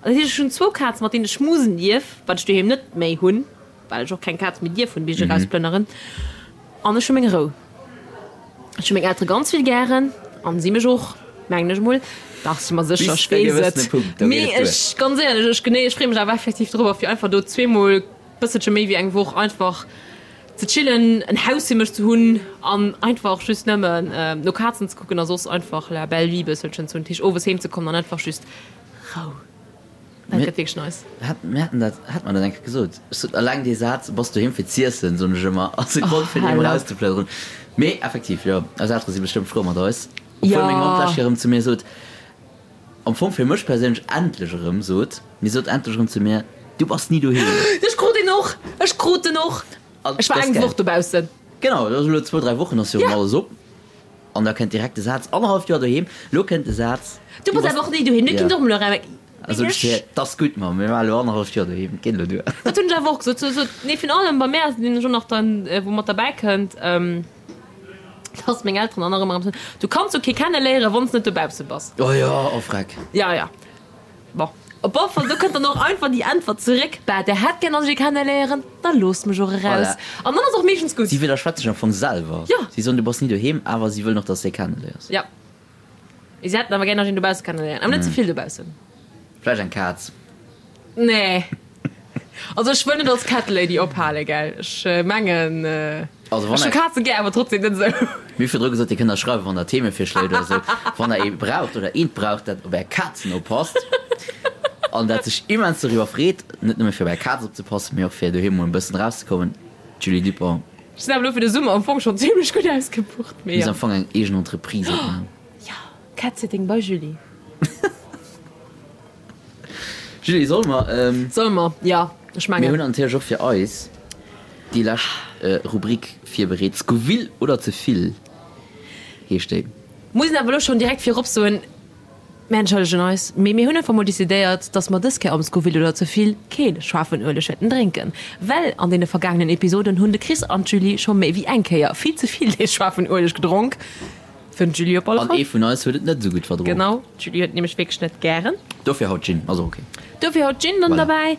Dat heescht, ech hunn zwou Kazen, mat deenen ech schmusen dierf, wat ech doheem net méi hunn, well ech och keng Kaz méi dierf hunn, bis ech erausplënneren. An ech hu meng Rou. Ech hu meng Eltere ganz vill gären an si mech och, mengen ech emol. Dach, si mer sécher, Bis ech e weess gewëssene et. Punkt, do geet Mee et duer. ech, ganz éierlech, ech genee, ech freeë mech awer effektiv dorobber, fir einfach do zweemol bësselche méi wéi eng Woch einfach ze chillen, en Haus fir mech ze hunn an einfach just nëmmen no Kazen ze kucken a soss einfach la belle vie bësselchen ze hunn. Dat heescht, owes heem ze kommen an einfach just Rou. Dat gëtt wierklech nice. Hat, mir haten dat, hat mer dat eng Kéier gesot. Ech sot, alleng dee Saz, Bass doheem fir z'iessen, soen ech ëmmer, ass e Grond fir doheem erauszeplënneren. Mee effektiv, jo, eis Eltere si bestëmmt frou mat eis. Obwuel meng Mamm d'lescht Kéier erëm zu mir sot, am Fong fir mech perséinlech endlech erëm sot, mee sot endlech erëm zu mir, Du bass ni doheem. Ech krut en och! Ech krut en och! Ech war eng Woch dobaussen. Genau, dat ass elo zwou, dräi Wochen ass jo erëm alles op. An da kënnt direkt de Saz, annerhalleft Joer doheem, lo kënnt de Saz, Du bass awer och ni doheem, du kinnt och emol erëm. Also ech fir, 't ass gutt, Mamm, mir war elo annerhalleft Joer doheem, et geet elo duer. Dat hunn ech awer och gesot. So, nee, virun allem bei mär ass et nämlech och nach dann, wou mat derbäi kënnt, dass meng Elteren dann nach ëmmer erëm soen, Du kanns jo kee kenneléieren, wann s net dobausse bass. Oh jo, oh freck. Ja, ja. Bon, op alle Fall, do kënnt dann och einfach déi Äntwert zeréck, Bah, der hätt gär, dass ech ee kenneléieren, da loosst mech och eraus. Voilà. An dann ass och meeschtens gutt. Si widderschwätzt sech am Fong selwer. Jo. Si soen, du bass ni doheem, awer si wëllen och, dass s de ee kenneléiers. Jo. Mee si hätten awer gär, dass ech een dobausse kenneléieren. Awer net ze vill dobaussen. Vläicht eng Kaz. Nee. Also ech wëll net als Cat Lady ophalen, gell. Ech mengen, Also wann ech hu der. Kaze gär, awer trotzdem net esou. Mir hu virdru gesot, Dir kënnt eis schreiwen, wann der Themevirschléi hutt oder esou. Wann der ee braucht oder eent braucht, dat op är Kazen oppasst an dat sech immens doriwwer freet, net nëmme fir op är Kaz opzepassen, mee och fir doheem mol e bëssen erauszekommen, Julie Dupont. Ech sinn awer elo fir de Summer am Fong schonn zimlech gutt ausgebucht, mee Misst jo. am Fong eng eegen Entreprise opmaachen. Jo, Cat-Sitting bei Julie. Julie, solle mer? Solle mer, jo, ech mengen. Mir hunn natierlech och fir eis déi lescht Rubrik virbereet. Scoville oder ze vill heescht déi. Muss een awer elo schonn direkt virop soen, mir entschëllegen eis, mee mir hunn einfach mol decidéiert, dass mer dës Kéier am Scoville oder ze vill kee schaarfen Ueleg wäerten drénken, well an deene vergaangenen Episoden hunn de Chris an d'Julie scho méi wéi eng Kéier vill ze vill dee schaarfen Ueleg gedronk. Fir den Julie op alle An Fall. ee vun eis huet et net esou gutt verdroen. Genau, d'Julie huet nämlech wierklech net gären. Dofir haut Gin, ass och ok. Dofir haut Gin dann Voilà. derbäi.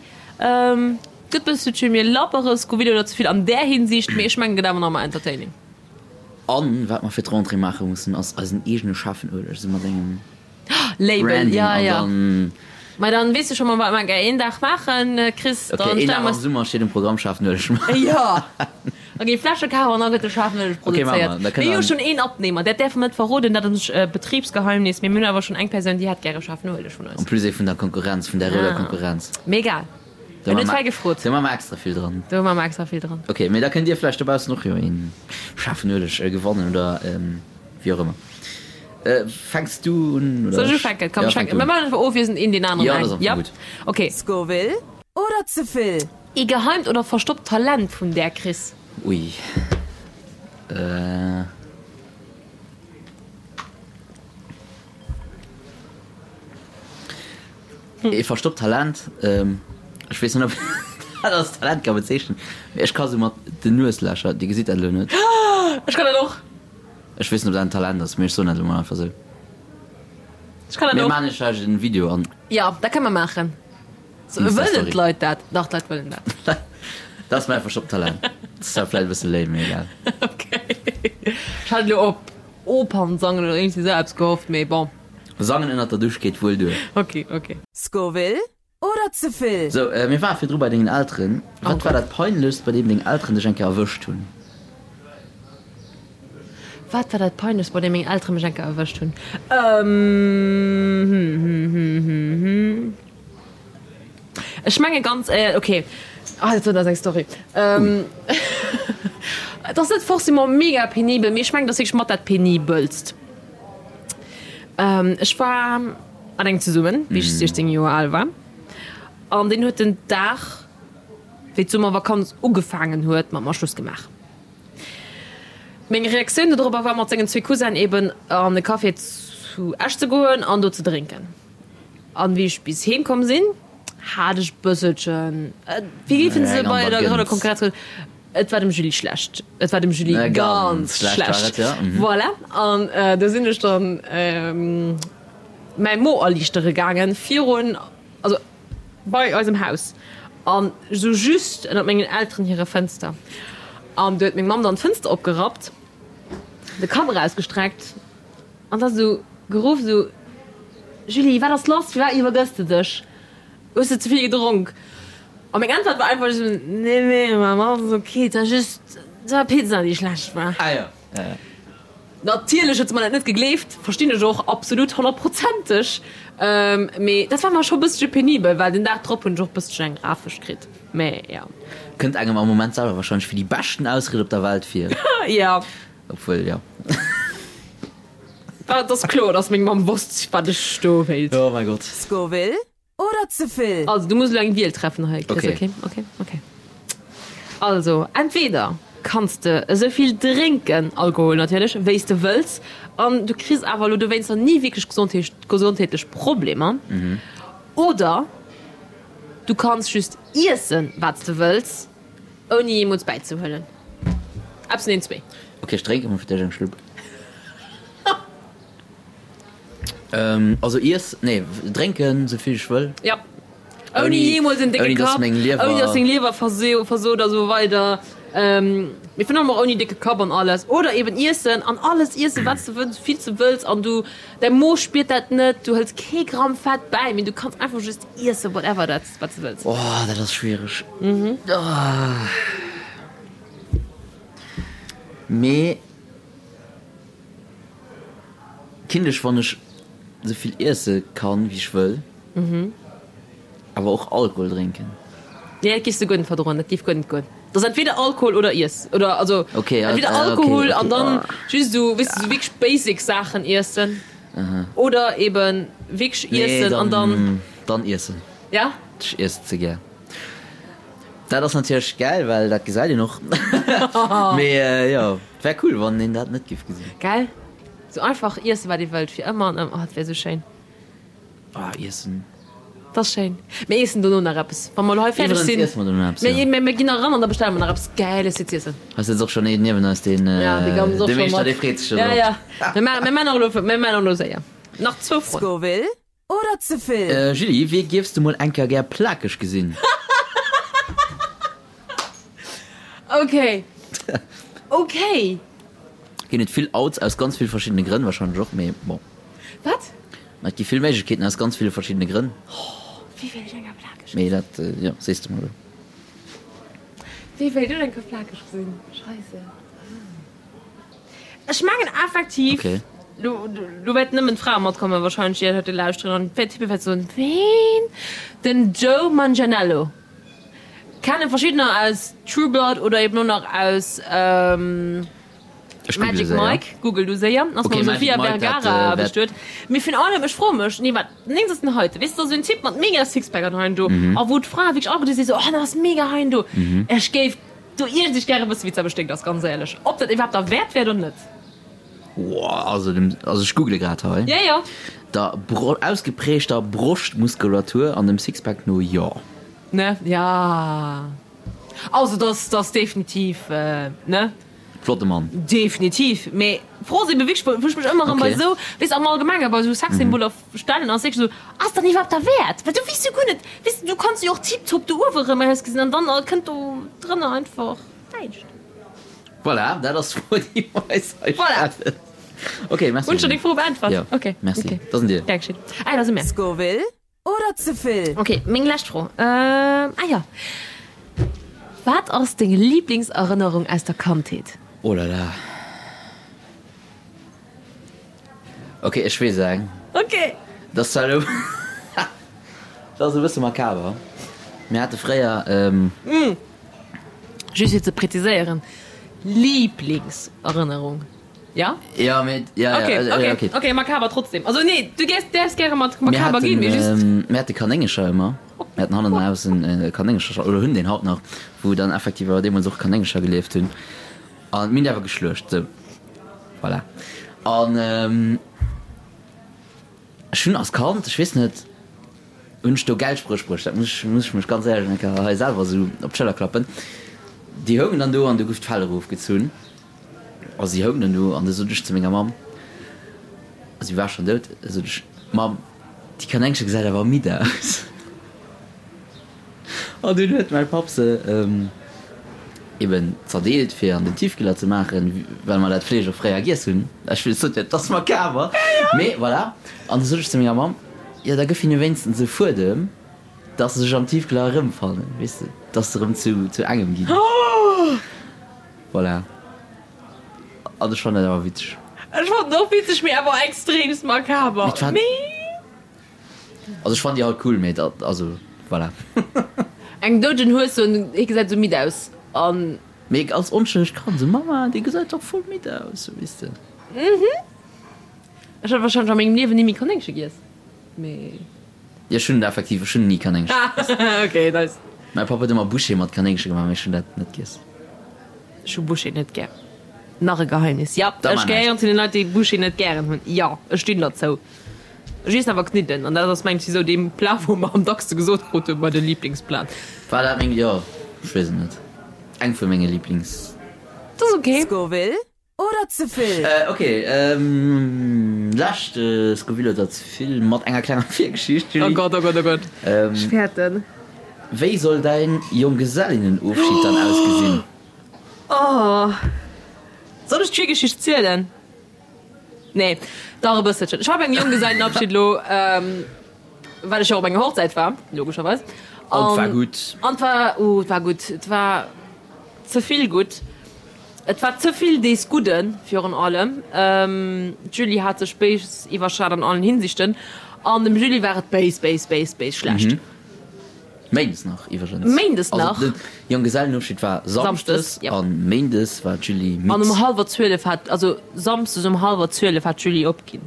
Gëtt bësselche mir labbere Scoville oder ze vill an där Hinsicht, mee ech mengen gëtt awer nach ëmmer entertaining. An wat mer fir d'Rentrée maache mussen ass eisen eegene schaarfen Ueleg, esou mat engem Label, Branding ja, an ja. dann. Mei dann weess de scho mol wat mer een Dag maachen, Chris. Ok, Dann een stelle Dag mer am Summer steet um Programm, schaarfen Ueleg maachen. Jo. Ok, Fläsche kafen an da gëtt de schaarfen Ueleg Ok, maache mer. produzéiert. Da Mir kënne hu mer. schonn een Abnehmer, dat däerfe mer net verroden, dat ass Betribsgeheimnis, mee mir hunn awer schonn eng Persoun, déi hätt gäre schaarfen Ueleg vun En eis. plus ee vun der Konkurrenz, vun der rouder Ah. Konkurrenz. Mee egal. Do En huet maache fäi mer, gefrot. do maache mer extra vill dran. Do maache mer extra vill dran. Ok, mee da kënnt dir vläicht dobaussen och jo een schaarfen Ueleg gewannen oder wéi och ëmmer. Fänks du un oder Soll ech ech? ufänken? Komm, Ja, ech fänk fänken. du Mir un. maachen einfach ofwiesselnd een deen aneren Ja, dat eng. ass am Fong Ja? gutt. Ok. Scoville oder ze vill? Ee geheimt oder verstoppt Talent vun där, Chris? Ui. Äh. Ee verstoppt Talent, ech weess net ob een dat als Talent ka bezeechnen, mee ech ka sou mat den Nueslächer, dir gesitt dat elo net. Ech kann dat och. Ech weess net ob dat en Talent ass, mee ech soen dat elo mol einfach sou. Ech kann dat Mir och. maachen iech vläicht en Video an. Jo, dat kënne mer maachen. Wëllen Insta-Story. d'Leit dat? Dach, d'Leit wëllen dat. Dat ass mäi verstoppt Talent. Dat ass zwar vläicht e bësse lame, mee egal. Ok. Ech hat elo op Opernsangen oder iergendwéi sou eppes gehofft, mee bon. Sangen ënnert der Dusch geet wuel duer. Ok, ok. Scoville oder ze vill? Sou, mir ware virdru bei dengen Elteren. Wat war dat Peinlechst, bei deem deng Elteren dech eng Kéier erwëscht hunn? Wat war dat Peinlechst, bei deem meng Eltere mech eng Kéier erwëscht hunn? Ech menge ganz éier, ok, ah dat ass eng Story. Et ass net forcément mega penibel, mee ech mengen, et ass wierklech mat dat penibelst. Ech war mat engem zesummen, wéi ech 16 Joer al war, an deen huet den Dag, wéi d'Summervakanz ugefaangen huet, mat mer Schluss gemaach. Meng Reaktioun dodropper war, mat sengen zwee Cousinnen eben an e Café zu Esch ze goen an do ze drénken. An wéi ech bis heem komm sinn, hat ech bësselchen, wéi géifen se bei der grouder Konkurrenz soen, et war dem Julie schlecht. Et war dem Julie ganz schlecht. Voilà. An do sinn ech dann mäi Mo erliichtere gaangen virun, also bei eisem Haus an esou just ënnert mengen Elteren hire Fënster. An do huet meng Mamm dann d'Fënster opgerappt, de Kapp erausgestreckt An da sou geruff, sou, Julie, wat ass lass? Firwat iwwergëss de dech? Hues de ze vill gedronk? A meng Äntwert war einfach sou, Nee, nee, Mamm, alles ok, et war just, et war Pizza, déi schlecht war. Ah jo, ja, ja. Natierlech huet se mer dat net gegleeft, verstinn ech och absolut honnertprozenteg, mee dat war mer scho bëssche penibel, well den Dag drop hunn ech och bësschen eng Rafesch kritt, mee jo. Kënnt engem am Moment selwer wahrscheinlech wéi déi beschten Ausried op der Welt vir. Jo. Obwuel, jo. Et ass kloer, dass meng Mamm wosst, wat ech do wéilt. Oh mäi Gott. Scoville oder ze vill? Also, du muss elo eng Wiel treffen hei, Chris. Okay. Okay, okay, okay. Also, entweder kanns de esou vill drénken, Alkohol natierlech, wéi s de wëlls, an du kriss awer elo dowéinster ni wierklech gesondheetlech Problemer, oder du kanns just iessen, wat s de wëlls, Ouni jeemools bäizehuelen. Eppes vun den zwee. Ok, ech drénke mol fir d'éischt eng Schlupp. Also iess, nee, drénken sou vill ech wëll. Ja. Ouni jeemools en décke Kapp, ouni dass deng Liewer versot a sou weider. Mee virun allem och ouni décke Kapp an alles. Oder eben iessen an alles iessen, wat s de wëlls, sou vill s de wëlls an du, däi Mo spiert dat net, du hëls kee Gramm Fett bäi, mee du kanns einfach just iessen, whatever dat. Wat de wëlls. Oh, dat ass schwiereg. Mee kinnt ech, wann ech sou vill iesse kann, wéi ech wëll, awer och Alkohol drénken? Nee, dat géifs de guer net verdroen. Dat géif guer net goen. Dat ass entweder Alkohol oder Iess. Oder also entweder Alkohol an dann just esou, weess de, esou wierklech basic Saachen iessen. Oder eben wierklech iessen an dann. Nee, dann iessen. Ja? Ech iessen ze gär. Dat ass natierlech gäil, well dat gesäit een och. Mee jo, et wär cool, wann een dat net giff gesinn. Gell? Sou einfach iessen, wat ee wëllt, fir ëmmer an ëmmer. Oh, dat wär sou schéin. Ah, iessen. Dat ass schéin. Mir iessen dono nach eppes, wa mer elo hei fäerdeg sinn. Iwwerens iesse mer dono eppes, jo. Mir, mir ginn nach eran an da bestelle mer nach eppes Gäiles fir z'iessen. Hei sëtzt och schonn een niewen eis, deen, Ja, dee Gams och de scho Meeschter, mat. dee freet sech scho Ja, drop. ja. Mir maachen, mir maachen och elo, mir maachen och elo séier. Nach zwou Froen. Scoville oder ze vill? Julie, wee giefs de mol eng Kéier gär plakeg gesinn? Okay. Okay. Ginn et vill Outs aus ganz vill verschiddene Grënn wahrscheinlech och, mee bon. Wat? Ma et gi vill Méiglechkeeten aus ganz ville verschiddene Grënn. Wéi wéilt ech eng Kéier plakeg Mee dat, jo, sees de mol elo. Wéi wéilt ech eng Kéier plakeg sinn? Scheisse. Ech mengen effektiv, Okay. lo, lo wäerten nëmmen d'Frae matkommen wahrscheinlech, déi dat heite lauschteren an d'Typpe wäerte soen, Ween? Den Joe Manganiello. Kennen verschiddener aus True Blood oder eben och nach aus Ech google Magic séier. Mike. Google du séier. Ass Okay, mam Magic Sofia Mike, dat, Vergara äh, wäert- bestuet. Mee virun allem, ech froe mech, nee wat, néngs ass den heite, weess de, esou en Typ mat mega Sixpack an hei an do, Mhm. a wou d'Frae wierklech alleguerte si sou, oh, dat ass mega hei an do. Ech géif do iergendwéi gäre wëssen, wéi et selwer sténkt ass, ganz éierlech. Ob dat iwwerhaapt derwäert wär oder net. Woah, also dem, also ech google grad hei. Ja, ja. Der Bro ausgeprägter Broschtmuskulatur an dem Sixpack no, jo. Ne? Ja. Also dass dass definitiv, ne? Flotte Mann. Definitiv. Mee d'Fro ass ebe wierklech, wou ech mech ëmmer erëm bei Okay. esou, weess de, am Allgemenge bei esou Sexsymboler stellen, ass wierklech esou, Ass dat iwwerhaapt derwäert? Well du weess jo guer net, weess de, du kanns jo och tiptop do uewe erëm ausgesinn an dann kënnt do drënner einfach näischt. Voilà, dat ass d'Fro, déi mer eis hei Voilà. stellen. Okay, merci. Hunn ech der deng Fro beäntwert? Jo. Okay. Merci. Okay. Dat sinn dir. Gär geschétt. Ah, dat si mär. Scoville Oder ze vill? Ok, meng lescht Fro. Ah jo, wat ass deng Liblingserënnerung aus der Kandheet? Oh la la. Ok, ech weess eng. Ok. Dat ass zwar elo, dat ass e bësse makaber. Mir hate fréier. Just fir ze präziséieren, Liblingserënnerung. Ja? Ja, mee, ja, ja, Okay, äh, okay, okay. okay, makaber trotzdem. Also nee, du gäers, däerfs gäre mat Mir makaber haten, ginn, mee just. ähm, mir hate Kanéngercher ëmmer. Mir haten hannen am Haus en äh, Kanéngercher, oder hunn deen haut nach, wou dann effektiv awer deemools och Kanéngercher gelieft hunn. An mir hunn déi awer geschluecht, sou. Voilà. An ähm, ech hunn als Kand, ech weess net, hunn ech do Geldspréch bruecht, dat muss ech, muss ech mech ganz éierlech eng Kéier hei selwer esou op d'Schëller klappen. Déi houngen dann do an du gouf d'Fell erofgezunn. A si houng dann do an du sot ech zu menger Mamm, a si war schonn dout, sot ech, Mamm, déi Kanéngche gesäit awer midd aus. An dunn huet mäi Papp se eben zerdeelt fir an den Tiefkühler ze maachen, well mer dat Fleesch och fréier giess hunn. Ech wëll sot jo, et ass makaber, mee voilà. An du sot ech zu menger Mamm, jo da gëff hinne wéinstens e Fuedem, dass se sech am Tiefkühler erëmfannen, weess de, dass se erëm zu engem ginn. Voilà. An ech fannen dat awer witzeg. Ech fannen och witzeg, mee awer extremst makaber. Mee d'fan. Also ech fannen déi halt cool, mee dat, also voilà. Eng doudegen Hues soen, hie gesäit esou midd aus an. Mee als onschëllegt Kand esou, Mama, dee gesäit dach voll midd aus, sou weess de. Mhm. Ech hätt wahrscheinlech a mengem Liewen ni méi Kanéngche giess, mee. Jo, ech hunn effektiv, ech hunn ni Kanéngche giess. Ok, nice. Mäi Papp huet ëmmer Bouchée mat Kanéngche gemaach, mee ech hunn dat net giess. Ech hu Bouchée net gär. Nach e Geheimnis, jo, Da ech mar gehéieren näischt. zu den Leit, déi Bouchée net gären hunn. Jo, ech stinn derzou. Ech iessen awer Kniddelen an dat ass mengt ech esou dee Plat, wou mer am dackste gesot krut hunn bei de Liblingsplat. War dat meng, jo, ech weess et net, eng vu menge Liblings. Dat ass ok. Scoville Oder ze vill? Ok, lescht Scoville oder ze vill mat enger klenger Virgeschicht, Julie. Oh Gott, oh Gott, oh Gott, ech fäerten. Wéi soll däin Jonggesellinnenofschied dann ausgesinn? Oh, soll ech d'Virgeschicht zielen? Nee, dach e bësselchen. Ech war bei engem Jonggesellenabschied elo, well ech jo och op enger Hochzäit war, logescherweis. An 't war gutt. An 't war, oh, 't war gutt. Et war ze vill gutt. Et war ze vill dees Gudden, virun allem d'Julie hat sech béis iwwerschat an allen Hinsichten, an dem Julie war et béis, béis, béis, béis schlecht. Méindes nach iwwregens. Méindes nach. Also de Jonggesellenofschied war samschdes an méindes war d'Julie midd. An um hallwer 12 hat, also samsdes um hallwer 12 hat d'Julie opginn.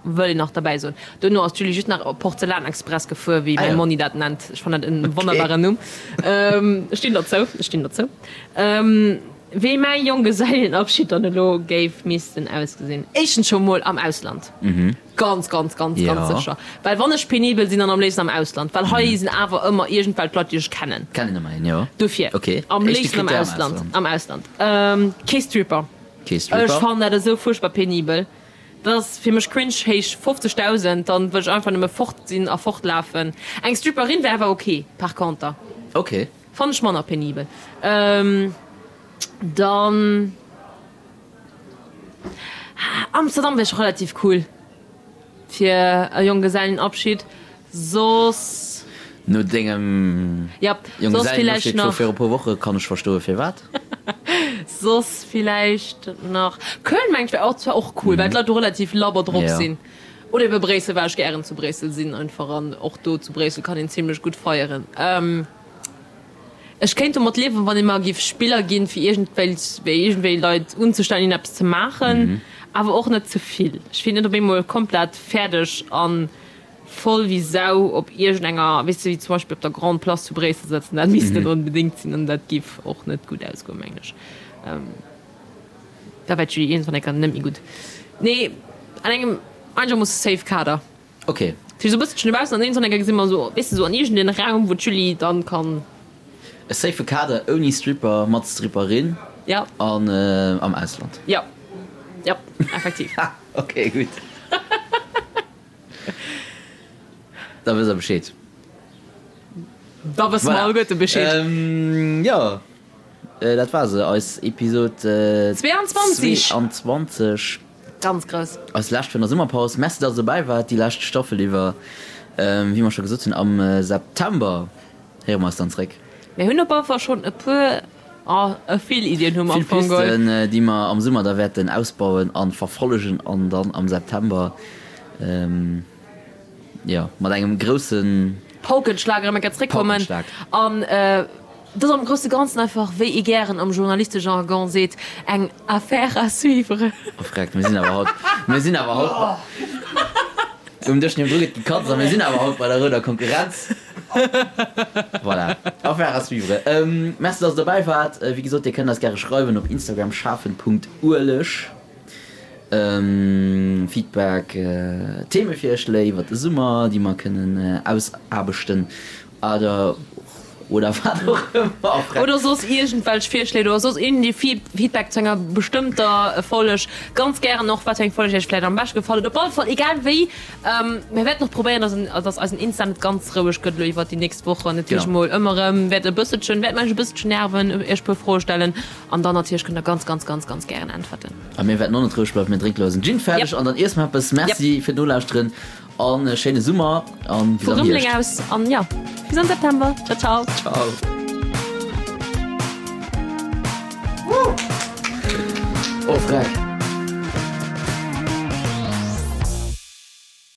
Wëll een nach derbäi soen. Duerno ass d'Julie just nach op Porzellanexpress gefuer, wéi mäi Monni dat nennt. Ech fannen dat en wonnerbaren Numm. Ech stinn derzou, ech stinn derzou. Wéi mäi Jonggesellenabschied dann elo géif missten ausgesinn? Éischtens scho mol am Ausland. Ganz, ganz, ganz, ganz sécher. Well wann ech penibel sinn, dann am léifsten am Ausland. Well hei sinn awer ëmmer iergendwelch Leit, déi ech kennen. Kennen ëmmer een, jo. Dofir, am léifsten am Ausland. Am Ausland. Kee Stripper. Kee Stripper. Ech fannen dat esou fuerchtbar penibel. Dat ass fir mech cringe héich 50.000, dann wëll ech einfach nëmme fort sinn a fortlafen. Eng Stripperin wär awer ok par conter. Ok. Fannen ech manner penibel. Dann Amsterdam wär scho relativ cool fir e Jonggesellenabschied. Soss. No dengem Jonggesellenabschied vu viru puer Woche kann ech verstoe firwat. Soss villäicht nach Köln mengen ech wär och zwar och cool, well d'Leit do relativ labber drop sinn. Oder ebe Bréissel, well ech gären zu Bréissel sinn einfach an och do zu Bréissel kann een zimlech gutt feieren. Ech kéint domat liewen, wann ee mer giff Spiller ginn, fir iergendwéi iergendwéi Leit unzestellen, hinnen eppes ze maachen, awer och net ze vill. Ech wier net op eemol komplett fäerdeg a voll wéi Sau op iergendenger, weess de, wéi zum Beispill op der Grande Place zu Bréissel sëtzen. Dat misst net onbedéngt sinn an dat giff och net gutt ausgoen, mengen ech. Da wär d'Julie iergendwann eng Kéier net méi gutt. Nee, an engem einegermoosse safe Kader. Ok. Fir esou e bësselchen dobaussen an iergendwann eng Kéier gesi mer esou, weess de, esou an iergendeen Raum, wou d'Julie dann kann. E safe Kader ouni Stripper, mat Stripperin. Ja. An am Ausland. Ja. Ja, effektiv. Ha, ok, gutt. Da wësst der Bescheed. Da wësse mer alleguerte Bescheed. Jo. Dat war se, eis Episod 22. 22. Ganz grouss. Eis lescht vun der Summerpaus. Merci, dass der dobäi waart déi lescht Staffel iwwer. Wéi mer scho gesot hunn, am September héiere mer eis dann zréck. Mir hunn op alle Fall schonn e puer, oh, vill Iddien hu mer am Fong geholl. Vill Pisten, déi mer am Summer da wäerten ausbauen a verfollegen an dann am September, jo, mat engem groussen. Paukenschlag erëm eng Kéier zréckkommen. Paukenschlag. An Et ass am grousse Ganzen einfach, wéi ee gären am Journalistejargon seet, eng Affaire à suivre. Oh freck, mir sinn awer haut, mir sinn awer haut um Dësch niewendru gëtt gekatzt a mir sinn awer haut bei der rouder Konkurrenz. Voilà, Affaire à suivre. Merci, dass der dobäi waart. Wéi gesot, dir kënnt eis gäre schreiwen op Instagram schaarfen.ueleg. Feedback, Themevirschléi iwwert de Summer, déi mer kënnen ausaarbechten. Oder, oder wat och ëmmer. Oder soss iergendwelch Virschléi oder soss iergendee Feedback zu enger bestëmmter Folg. Ganz gären och, wat fir eng Folg iech vläicht am beschte gefall huet. Op alle Fall, egal wéi, mir wäerten och probéieren, dass en, dass eisen Insta net ganz roueg gëtt elo iwwert déi nächst Wochen. Natierlech emol ëmmer erëm wäert e bësselchen, wäerte mer iech e bësselchen nerven, iech e puer Froe stellen an dann natierlech kënnt der ganz, ganz, ganz, ganz gären äntwerten. A mir wäerten och net roueg bleiwen. Mir drénke lo eisen Gin fäerdeg an dann iesse mer eppes. Merci fir d'Nolauschteren. An e schéine Summer an bis am Hierscht. Aus an ja, bis am September. Ciao, ciao. Ciao. Oh, freck.